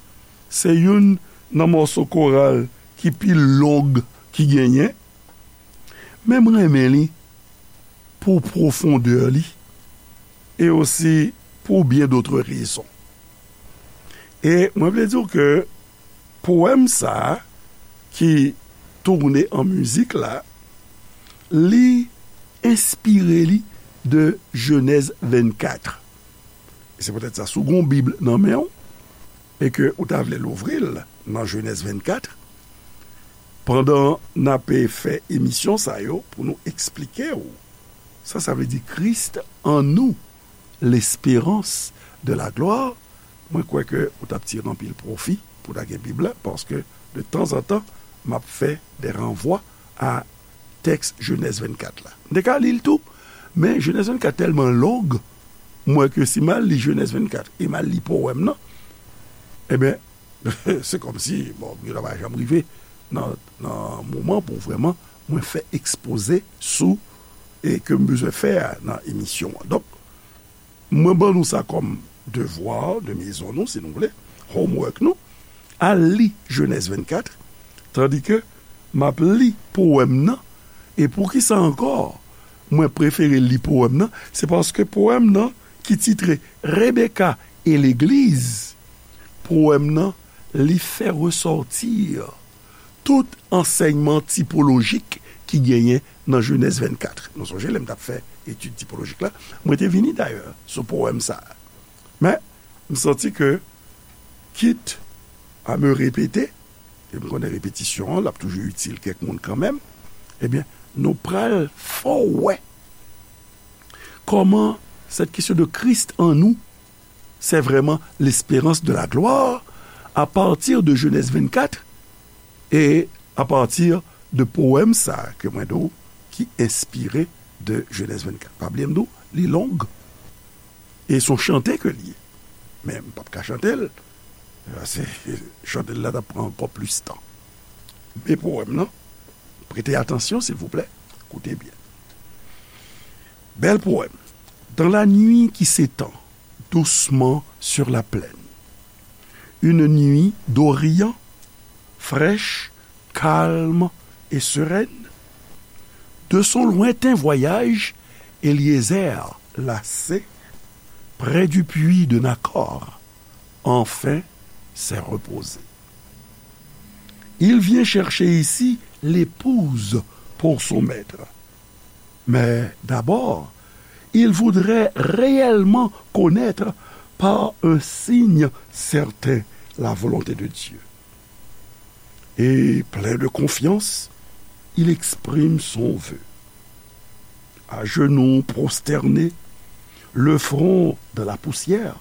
Se youn nan mòso koral ki pi long ki genyen, men m renmen li pou pwofondè li, e osi pou bien d'autres raisons. E mwen vle di w ke powèm sa a ki tounen an mizik la, li enspire li de Jenèz vennkat. E se poutèt sa, si w gen yon Bib nan men w, e ke ou ta vle louvri l nan Jenèz vennkat, pandan n ape fè emisyon sa yo, pou nou eksplike w sa sa vle di Christ en nous, l'espérance de la gloire, mwen kwè ke ou t ap tire anpil pwofi pou w ta gen Bib la, paske de tanzantan, m ap fè de ranvwa a tèks Jenèz vennkat la. M te ka li l tou, men Jenèz vennkat tèlman long, m wè ke si m al li Jenèz vennkat e m al li powèm nan, eben, se kòmsi, bon, yo ta pa janm rive nan, nan moman pou vrèman mwen fè ekspoze sou e ke m bezwen fè a nan emisyon an. Donk, mwen ban nou sa kòm devwa de mezon nou, si nou vle, homework nou, al li Jenèz vennkat, tandike m ap li powèm nan, e poukisa ankò mwen prefere li powèm nan, se paske powèm nan ki titre Rebecca et l'église, powèm nan, li fè resòti tout ansèyman tipolojik ki genyen nan Jenèz vennkat. Nou sonje lè m t ap fè etid tipolojik la, mwen te vini dayè sou powèm sa a. Men, m santi ke, quitte à me répéter, e m konnen repetisyon an, l ap toujou itil kèk moun kanmenm, ebyen, nou pral fè w wè kòman cette question de Christ en nous, c'est vraiment l'espérance de la gloire à partir de Genèse vingt-quatre et à partir de powèm sa ke mwen di w, ki enspire de Jenèz vennkat. Pa bliye m di w, li long. E se yon chante ke l ye. Men m p ap ka chante l. Paske chante l la t ap pran ankò plis tan. Men powèm nan, prete atansyon, silvouplè. Koute byen. Bèl powèm. Dans la nuit qui s'étend doucement sur la plaine, une nuit d'Orient, fraîche, calme et sereine, de son lointain voyage, Éliézer, lassé, près du puits de Nakor, enfin s'est reposé. Il vient chercher ici l'épouse pour son maître. Mais d'abord, il voudrait réellement connaître par un signe certain la volonté de Dieu. Et plein de confiance, il exprime son vœu. À genoux prosterné, le front dans la poussière,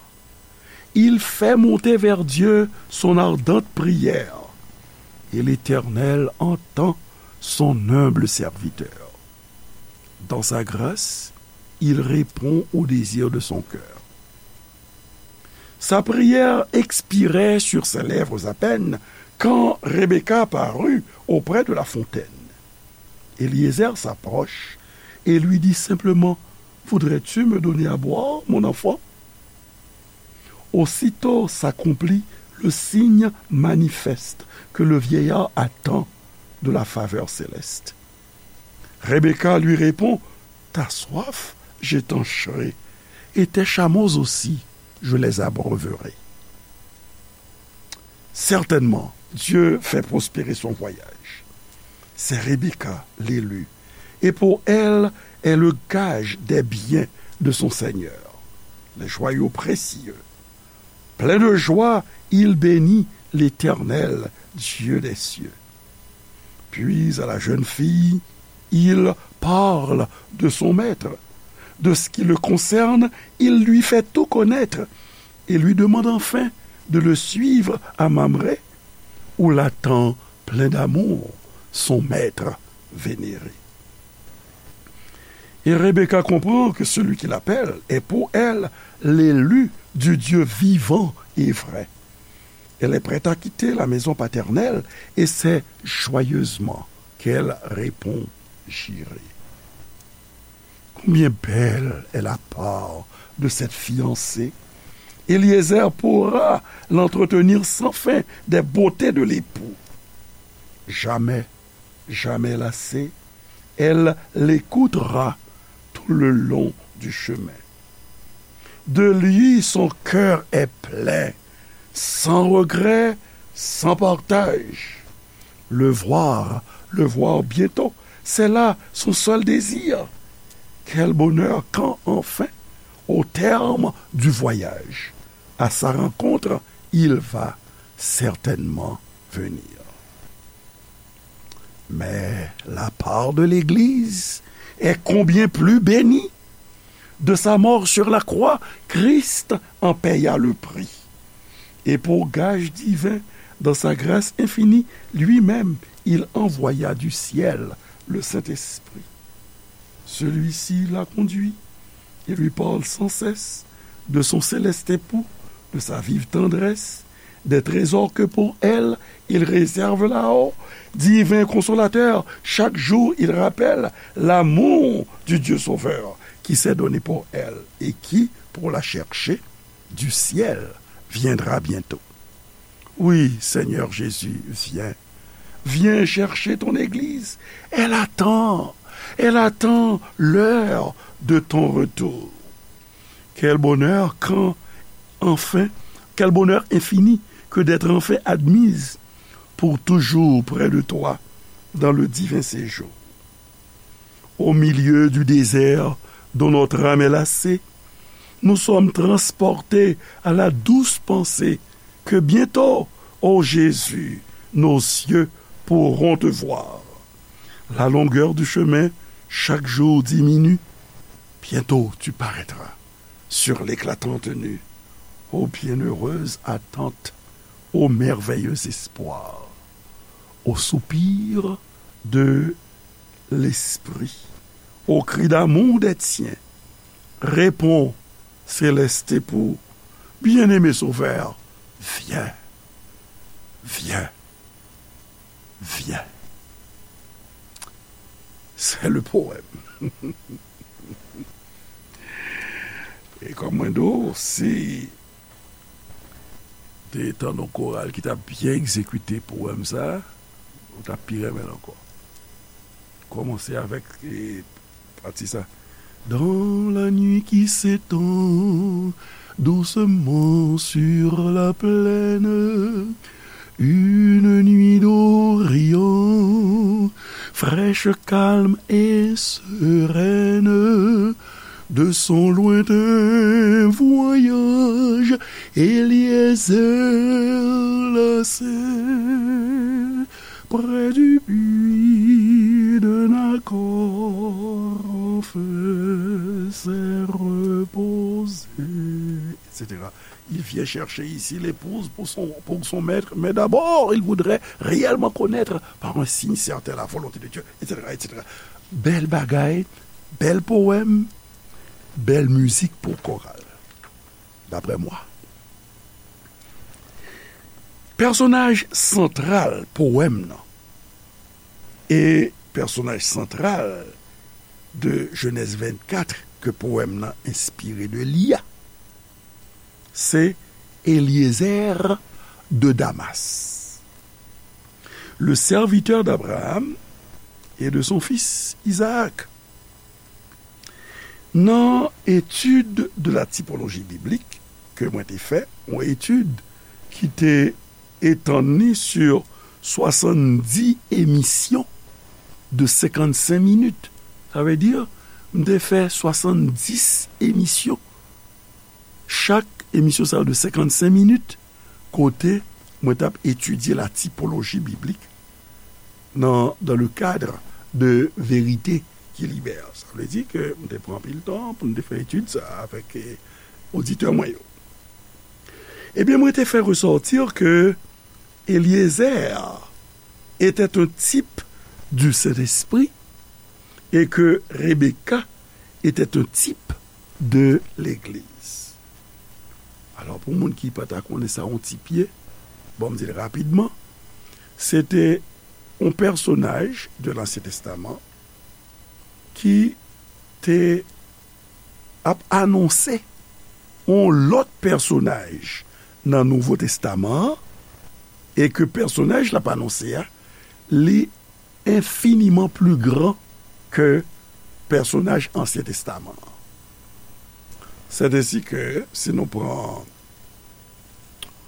il fait monter vers Dieu son ardente prière, et l'Éternel entend son humble serviteur. Dans sa grâce, il répond au désir de son cœur. Sa prière expirait sur ses lèvres à peine quand Rebecca parut auprès de la fontaine. Éliézer s'approche et lui dit simplement : « Voudrais-tu me donner à boire, mon enfant ? » Aussitôt s'accomplit le signe manifeste que le vieillard attend de la faveur céleste. Rebecca lui répond : « Ta soif, je t'en serai, et tes chameaux aussi, je les abreuverai. » Certainement, Dieu fait prospérer son voyage. C'est Rebecca, l'élue, et pour elle est le gage des biens de son Seigneur, les joyaux précieux. Plein de joie, il bénit l'Éternel, Dieu des cieux. Puis à la jeune fille, il parle de son maître. De ce qui le concerne, il lui fait tout connaître et lui demande enfin de le suivre à Mamré, où l'attend plein d'amour son maître vénéré. Et Rebecca comprend que celui qui l'appelle est pour elle l'élu du Dieu vivant et vrai. Elle est prête à quitter la maison paternelle et c'est joyeusement qu'elle répond : « J'irai. » Combien belle est la part de cette fiancée ! Éliézer pourra l'entretenir sans fin des beautés de l'époux. Jamais, jamais lassée, elle l'écoutera tout le long du chemin. De lui, son cœur est plein, sans regret, sans partage. Le voir, le voir bientôt, c'est là son seul désir. Quel bonheur quand enfin, au terme du voyage, à sa rencontre, il va certainement venir. Mais la part de l'Église est combien plus bénie ! De sa mort sur la croix, Christ en paya le prix. Et pour gage divin, dans sa grâce infinie, lui-même, il envoya du ciel le Saint-Esprit. Celui-ci la conduit et lui parle sans cesse de son céleste époux, de sa vive tendresse, des trésors que pour elle il réserve là-haut. Divin consolateur, chaque jour il rappelle l'amour du Dieu Sauveur qui s'est donné pour elle et qui, pour la chercher, du ciel viendra bientôt. Oui, Seigneur Jésus, viens. Viens chercher ton Église. Elle attend. Elle attend l'heure de ton retour. Quel bonheur quand, enfin, quel bonheur infini que d'être enfin admise pour toujours près de toi dans le divin séjour. Au milieu du désert dont notre âme est lassée, nous sommes transportés à la douce pensée que bientôt, ô Jésus, nos yeux pourront te voir. La longueur du chemin chaque jour diminue. Bientôt tu paraîtras sur l'éclatante nue. Ô bienheureuse attente, ô merveilleux espoir, ô soupir de L'esprit, au cri d'amour des tiens, répond céleste époux, bien-aimé Sauveur, viens, viens, viens. C'est le poème. E kòm mwen di w, si te tande yon koral ki t ap byen egzekite powèm sa a, ou t ap pi renmen l ankò. Kòmanse avèk, e, pati sa. Dans la nuit qui s'étend doucement sur la plaine, une nuit d'Orient, fraîche, calme et sereine, de son lointain voyage, Éliézer lassé, près du puits d'un accord en feu s'est reposé, et cetera. Il vient chercher ici l'épouse pour son, pour son maître, mais d'abord, il voudrait réellement connaître par un signe certain la volonté de Dieu, et cetera, et cetera. Bèl bagay, bèl powèm, bèl mizik pou koral, daprè mwen. Pèsonaj santral powèm nan e pèsonaj santral de Jenèz vennkat ke powèm nan enspire de li a, se Eliezer de Damas, le serviteur d'Abraham et de son fils Isaac. Nan étude de la typologie biblique ke mwen te fè, yon etid ki te etann li sur swasanndis emisyon de senkannsenk minit. Sa vle di, m te fè swasanndis emisyon. Chak emisyon sa yo de senkannsenk minit, kote mwen t ap etidye la typologie biblique nan, dans le cadre de Vérité qui libère. Sa vle di ke m te pran anpil tan pou m te fè etid sa a avèk, eh, oditè mwen yo. Ebyen, mwen te fè ressortir que Eliezer était un type du Saint-Esprit et que Rebecca était un type de l'Église. Alò, pou moun ki pa ta konnen sa yon tip ye, bon, m di l rapidman, se te yon pèsonaj de Lansyen Testaman ki te ap anonse yon lòt pèsonaj nan Nouvo Testaman an, e ke pèsonaj l ap anonse a, li enfiniman pli gran ke pèsonaj Ansyen Testaman an. Sèt ensi ke, si nou pran,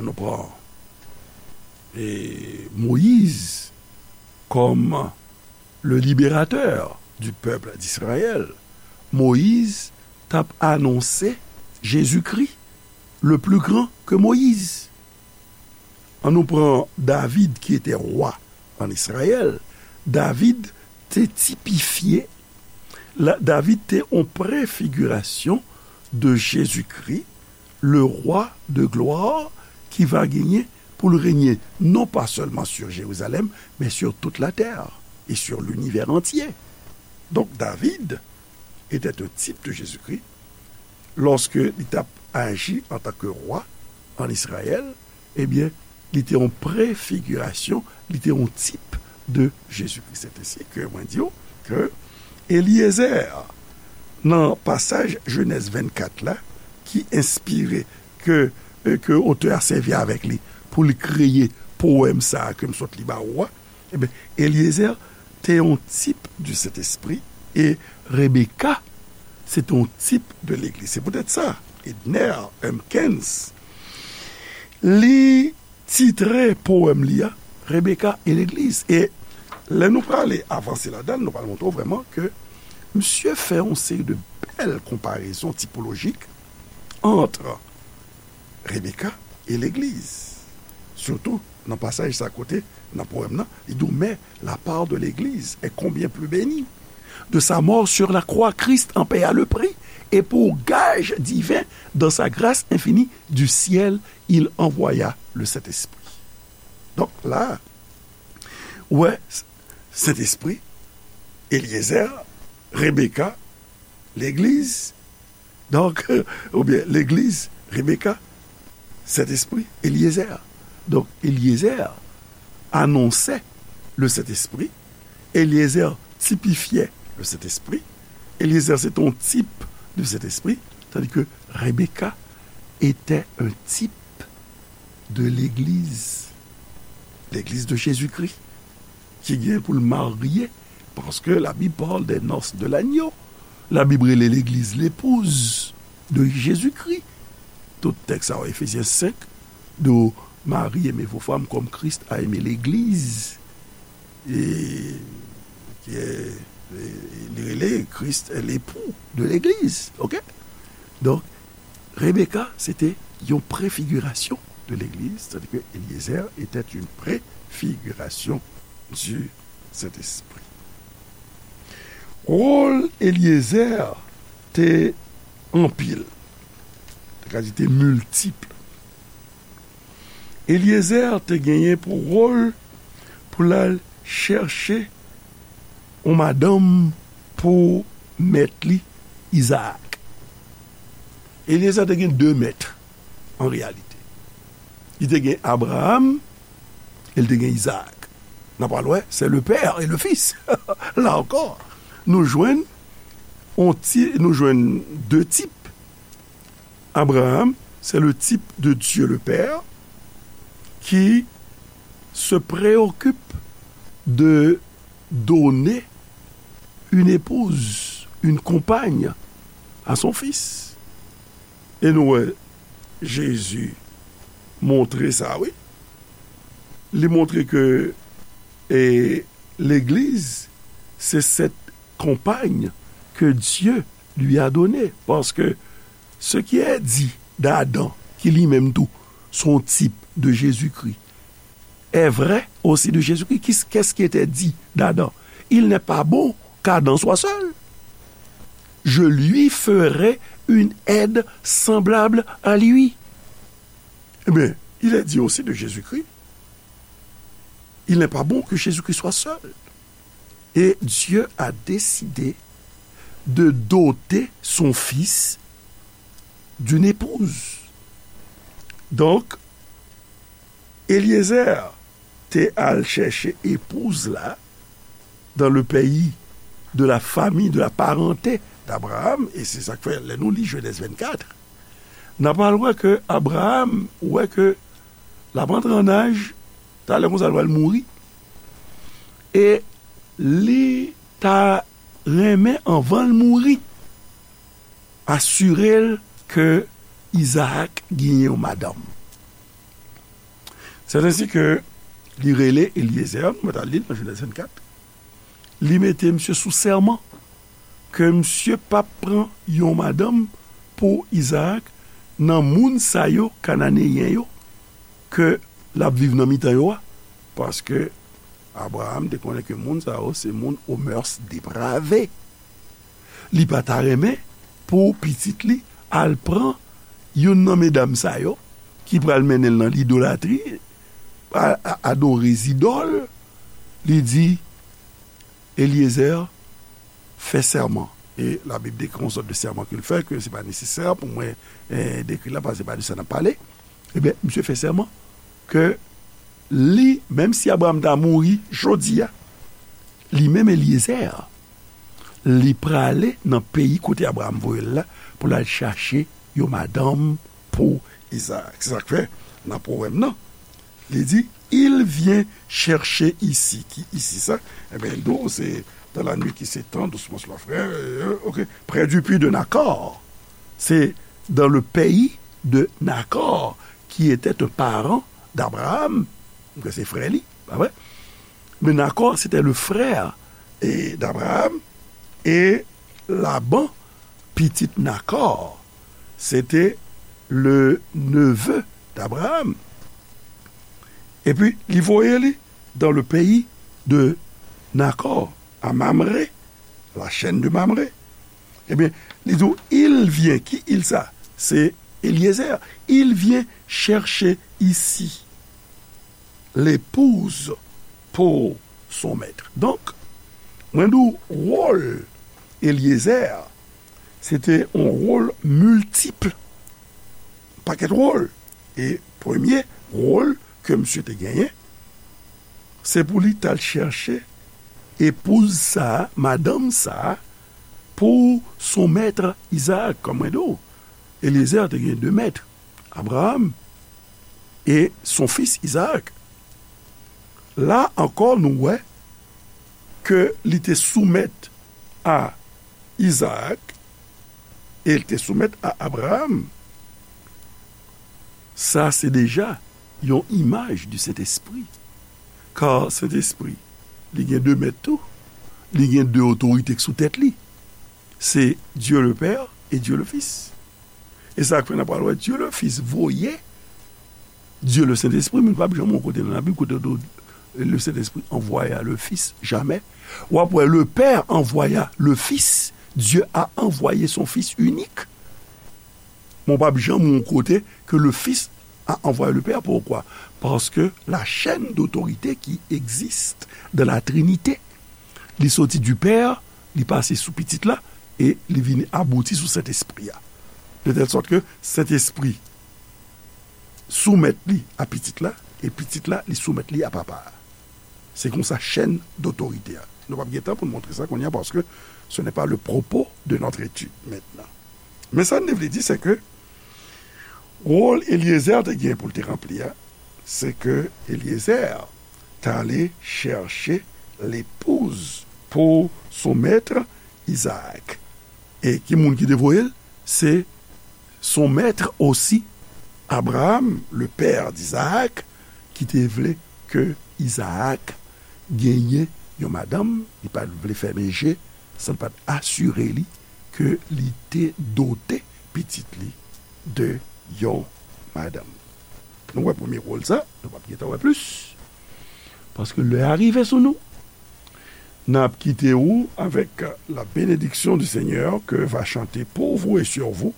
nou pran, e, Moyiz kòm le libérateur du peuple d'Israël, Moyiz t ap anonse Jezikri, le plus grand que Moïse. An nou pran David ki te wa an Izrayèl. David te tipifye, la, David te yon prefigirasyon de Jezikri, le roi de gloire qui va gagner pour le régner non pas seulement sur Jérusalem, mais sur toute la terre et sur l'univers entier. Donc David était un type de Jésus-Christ. Lòske li t ap aji antanke wa an Izrayèl, ebyen, li te yon prefigirasyon, li te yon tip de Jezikri. Se te si ke mwen di w ke Eliezer, nan pasaj Jenèz vennkat la, ki enspire, ke, ke otè a sèvi avèk li pou li kreye powèm sa a ke m sot li ba ou a, ebyen, Eliezer te yon tip du Sentespri e Rebeka se te yon tip de legliz. Se poutèt sa, Edner Humpkins, li titre powèm li a Rebecca et l'Église. E lè nou prale avanse ladan l, nou pral montre w vrèman ke misye fè yon seri de bèl konparezon tipolojik ant Rebecca et l'Église. Sitou nan pasaj sa kote, nan powèm nan, li di w, mais la part de l'Église est combien plus bénie. De sa mort sur la croix, Christ en paya le prix, et pour gage divin, dans sa grâce infinie, du ciel, il envoya le Saint-Esprit. Donk la, ou wè, Sentespri, Eliezer, Rebeka, legliz. Donk, oubyen legliz, Rebeka, Sentespri, Eliezer. Donk, Eliezer anonsè le Sentespri. Eliezer tipifyè le Sentespri. Eliezer se te yon tip de Sentespri, tandis ke Rebeka était un type de legliz, legliz de Jezikri, ki gen pou l marye, paske la Bib parle des noces de l'agneau. La Bib rele legliz lepouz de Jezikri. Tout tèks sa yo, Efezyen senk, di w, mari, aimez vos femmes comme Christ a aimé legliz. E, ki, e, li rele Christ est l'époux de legliz. Oke? Donk, Rebeka, se te yon prefigirasyon de legliz, tandis que Eliezer était une préfiguration du Saint-Esprit. Wòl Eliezer te anpil, te ka di te miltip. Eliezer te genyen pou wòl pou l al chèche yon madanm pou mèt li, Izaak. Eliezer te gen de mèt, an reyalite. Li te gen Abraram e li te gen Izaak. N a pral wè, c'est le père et le fils. La encore, nou jwenn, on ti, nou jwenn de tip. Abraham, c'est le type de Dieu le Père qui se préoccupe de donner une épouse, une compagne à son fils. E nou wè, Jezi montre sa, wi. Li montre ke, e, legliz, se cette compagne que Dieu lui a donnée. Parce que ce qui est dit d'Adam, qui lui-même tout, son type de Jésus-Christ, est vrai aussi de Jésus-Christ. Qui- Qu'est-ce qui était dit d'Adam? Il n'est pas bon qu'Adam soit seul. Je lui ferai une aide semblable à lui. Eh bien, il est dit aussi de Jésus-Christ, il n'est pas bon que Jésus-Christ soit seul. Et Dieu a décidé de doter son fils d'une épouse. Donc, Eliezer te al chèche epouz la dans le pays de la famille, de la parenté d'Abraham, e se sa k fè, lè nou li Genèse vingt-quatre, n a pral wè ke Abraham wè ke l ap antre an aj, talè konsa l pral mouri, e li ta renmen, anvan l mouri, asire l ke Izaak genyen yon madanm. C'est ainsi que li rele Eliezer, nou mèt al li l nan Genèse vingt-quatre, li mete misye sou sèman ke misye p ap pran yon madanm pou Izaak nan moun sa yo, Kananeyen yo, ke l ap viv nan mitan yo a, paske Abraham te konnen ke moun sa yo se moun aux mœurs dépravées. Li pa ta renmen pou pitit li al pran youn nan medam sa yo ki pral mennen l nan lidolatri, a, a, adore zidòl. Li di, Eliezer, fè sèman. E Labib dekri yon sòt de sèman ke l fè, ke se pa nesesè pou mwen, eh, dekri la, paske se pa de sa n ap pale. Ebyen, misye fè sèman ke li, menm si Abraham ta mouri jodi a, li menm Eliezer, li prale nan peyi kote Abraham voye l la pou l al chache yon madanm pou Izaak. Se sa k fè, nan powèm nan, li di, il vient chercher ici. Ki ici sa? Ebyen, nou, se dans la nuit qui s'étend doucement sur la forêt, euh, ok, près du puits de Nacor. C'est dans le pays de Nacor, qui était un parent d'Abraham, ke se frè li, pa vre? Men Nacor, c'était le frère, eh, d'Abraham, et Laban, pitit Nacor, c'était le neveu d'Abraham. Epi, li voye li dans le pays de Nacor, à Mamré, la chaîne de Mamré. Ebyen, li di w, il vient, ki il sa? Se Eliezer. Il vient chercher ici l'épouse pour son maître. Donk, Mwen di w, wòl Elyezè, se te yon wòl miltip, pakèt wòl. E premye wòl ke misye te genyen, se pou li t al chèche epouz sa a, madanm sa a, pou son mèt Izaak. Kòm mwen di w, Elyezè te gen de mèt, Abraram e son fis Izaak. La ankò, nou wè ke li te soumèt a Izaak e li te soumèt a Abraram. Sa se deja yon imaj di Sentespri. Kar Sentespri, li gen de mèt tou. Li gen de otorite k sou tèt li. Se Dieu le Père et Dieu le Fils. E sa k fè n ap pral wè Dieu le Fils voye Dieu le Saint-Esprit, men nou p ap janm wè yon kote nan Labib kote yo di w, le Saint-Esprit envoya le Fils, jamè. W ap wè le Père envoya le Fils, Dieu a envoyé son Fils unique. Men w p ap janm wè yon kote ke le Fils a envoyé le Père. Pourquoi? Parce que la chaîne d'autorité qui existe dans la Trinité, li soti du Père, li pase sou Pitit la, e li vin abouti sou Sentespri a. De tèl sòt ke Sentespri soumèt li a Pitit la, e Pitit la, li soumèt li a Papa a. Se konsa chèn dotorite a. Nou p ap gen tan pou n montre sa kounye a, paske ce n'est pas le propos de notre étude maintenant. Men sa n te vle di, se ke wòl Elyezè te gen pou l te ranpli a, se ke Elyezè t ale chèche lepouz pou son mèt Izaak. E ki moun ki te voye l? Se son mèt osi, Abraham, le père d'Isaac, ki te vle ke Izaak genyen yon madanm, li pa t vle fèmen je, san l pa t asire li ke li te dote pitit li de yon madanm. Nou wè premye wòl sa, nou p ap gentan wè plis. Paske lè a rive sou nou, n ap kite ou avec la bénédiction du Seigneur que va chanter pour vous et sur vous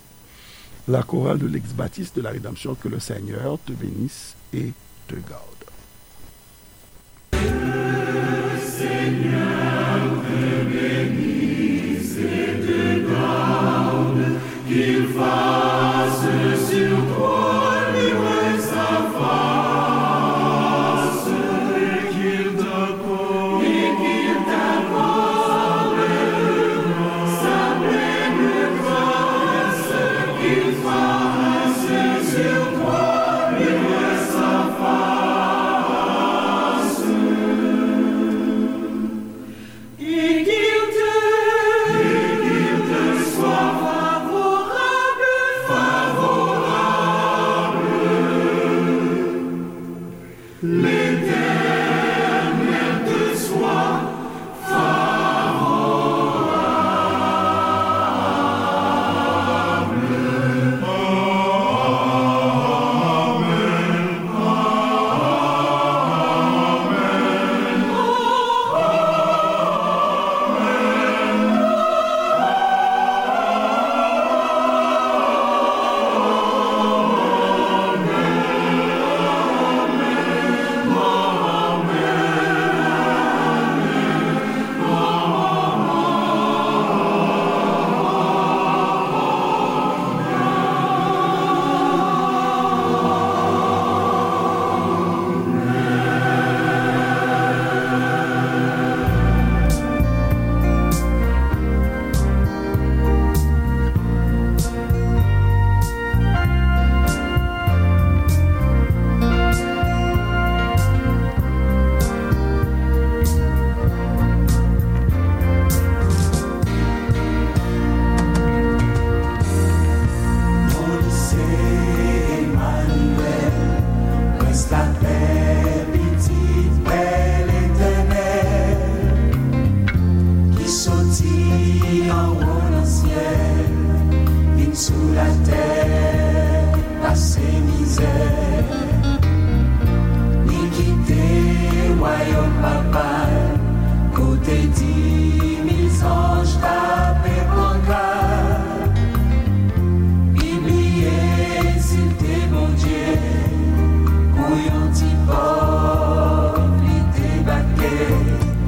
la chorale de l'Église baptiste de la Rédemption. Que le Seigneur te bénisse et te garde.